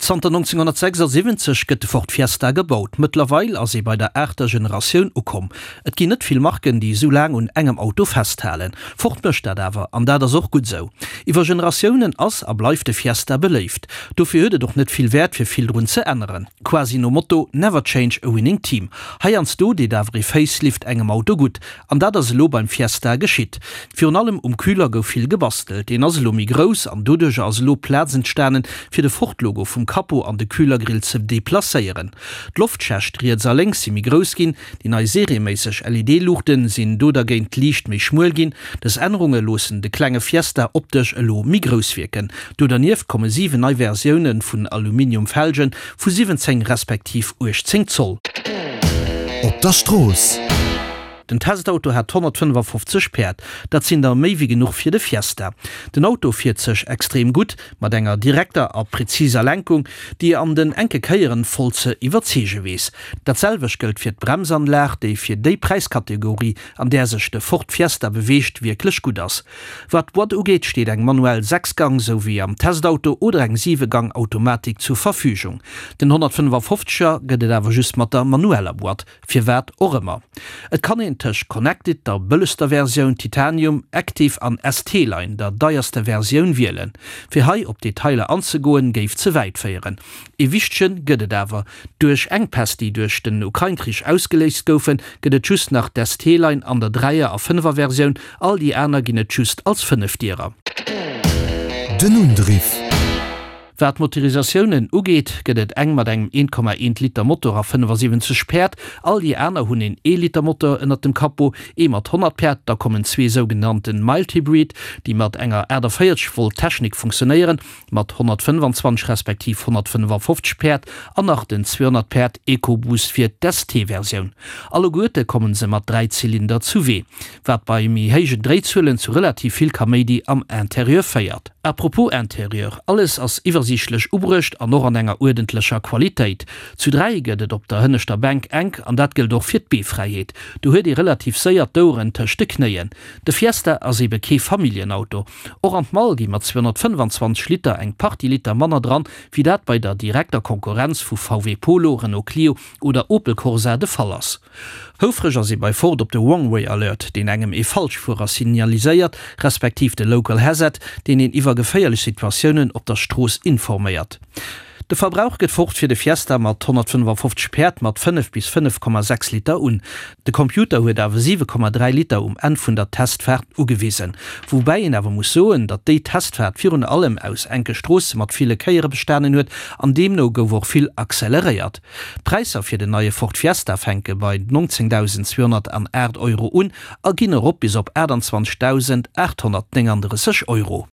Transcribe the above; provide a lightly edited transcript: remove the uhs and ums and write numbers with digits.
Zanter 1976 gëtt de Ford Fiesta gebaut. Mëttlerweil ass ee bei der aachter Generatioun ukomm. Et ginn net vill Marken, déi esou laang un engem Auto festhalen. Ford mécht dat awer, an dat ass och gutt esou. Iwwer Generatiounen ass a bleift de Fiesta beléift. Dofir huet et och net vill Wäert, fir vill drun ze änneren. Quasi nom Motto Never change a winning team. Heiansdo deet awer ee Facelift engem Auto gutt. An dat ass elo beim Fiesta geschitt. Virun allem um Kühler gouf vill gebastelt. Deen ass elo méi grouss an doduercher ass elo Plaz entstanen, fir de Ford-Logo vum Capot an de Kühlergrill ze deplacéieren. D'Loftschächt riets a lénks si méi grouss ginn, déi nei serieméisseg LED-Luuchte sinn do dergéint liicht méi schmuel ginn. Dës Ännerunge loossen de klenge Fiesta optesch elo méi grouss wierken. Do dernieft komme 7 nei Versioune vun Aluminium-Felgen vu 17 respektiv 18 Zoll. Op der Strooss. Den Testauto hat 155 Päerd, dat sinn der méi wéi genuch fir de Fiesta. Den Auto fiert sech extrem gutt, mat enger direkter a präziser Lenkung, déi an den enke Kéieren voll ze iwwerzeege weess. Dat selwecht gëllt fir d'Bremsanlag, déi fir déi Präiskategorie, an där sech de Ford Fiesta beweegt, wierklech gutt ass. Wat d'Boîte ugeet, steet eng manuell 6 Gang, sou wéi am Testauto, oder eng 7 Gang Automatik zur Verfügung. Den 155 er gëtt et awer just mat der manueller Boîte, firwat och ëmmer. Et kann een tëscht Connected, der bëllegster Versioun, Titanium, Active an ST-Line, der deierster Versioun, wielen. Fir hei op d'Detailer anzegoen, géif ze wäit féieren. Ee wichtegen gëtt et awer, Duerch Enkpäss, déi duerch den Ukrain-Krich ausgeléist goufen, gëtt et just nach d'ST-Line an der Dräier a Fënnefer-Versioun, all déi aner ginn et just als Fënnefdierer. Den Undriff. Wat d'Motorisatiounen ugeet, gëtt et eng mat engem 1,1 Liter Motor a 75 Päerd, all déi aner hunn een ee Liter Motor ënnert dem Capot, ee mat 100 Päerd, da kommen zwee sougenannte Mild Hybrid, déi mat enger 48 Volt Technik funktionéieren, mat 125 respektiv 155 Päerd an nach den 200 Päerd EcoBoost fir d'ST-Versioun. Alleguerte kommen se mat 3 Zylinder zu Wee, wat bei méi héijen Dréizuelen zu relativ vill Kaméidi am Interieur féiert. À propos Interieur, alles ass iwwersiichtlech ubruecht an och an enger uerdentlecher Qualitéit. Zu 3 gëtt et op der hënneschter Bänk enk an dat gëllt och fir d'Beefräiheet. Do huet ee relativ séier d'Oueren tëscht de Knéien. De Fiesta ass ebe kee Familljenauto. Och an d'Mall gi mat 225 Liter eng Partie Liter manner dran, wéi dat bei der direkter Konkurrenz vu VW Polo, Renault Clio oder Opel Corsa de Fall ass. Houfreg ass ee bei Ford op de Wrong-Way Alert, deen engem ee Falschfuerer signaliséiert, respektiv de Local Hazard, deen een iwwer geféierlech Situatiounen op der Strooss informéiert. De Verbrauch gëtt Ford fir de Fiesta mat 155 Päerd mat 5 bis 5,6 Liter un. De Computer huet awer 7,3 Liter um Enn vun der Testfaart ugewisen. Woubäi een awer muss soen, datt déi Testfaart virun allem aus enke Stroosse mat ville Kéiere bestanen huet an deemno gouf och vill acceleréiert. D'Präisser fir den neie Ford Fiesta fänke bei 19.208 Euro un a ginn erop bis op 28.839 Euro.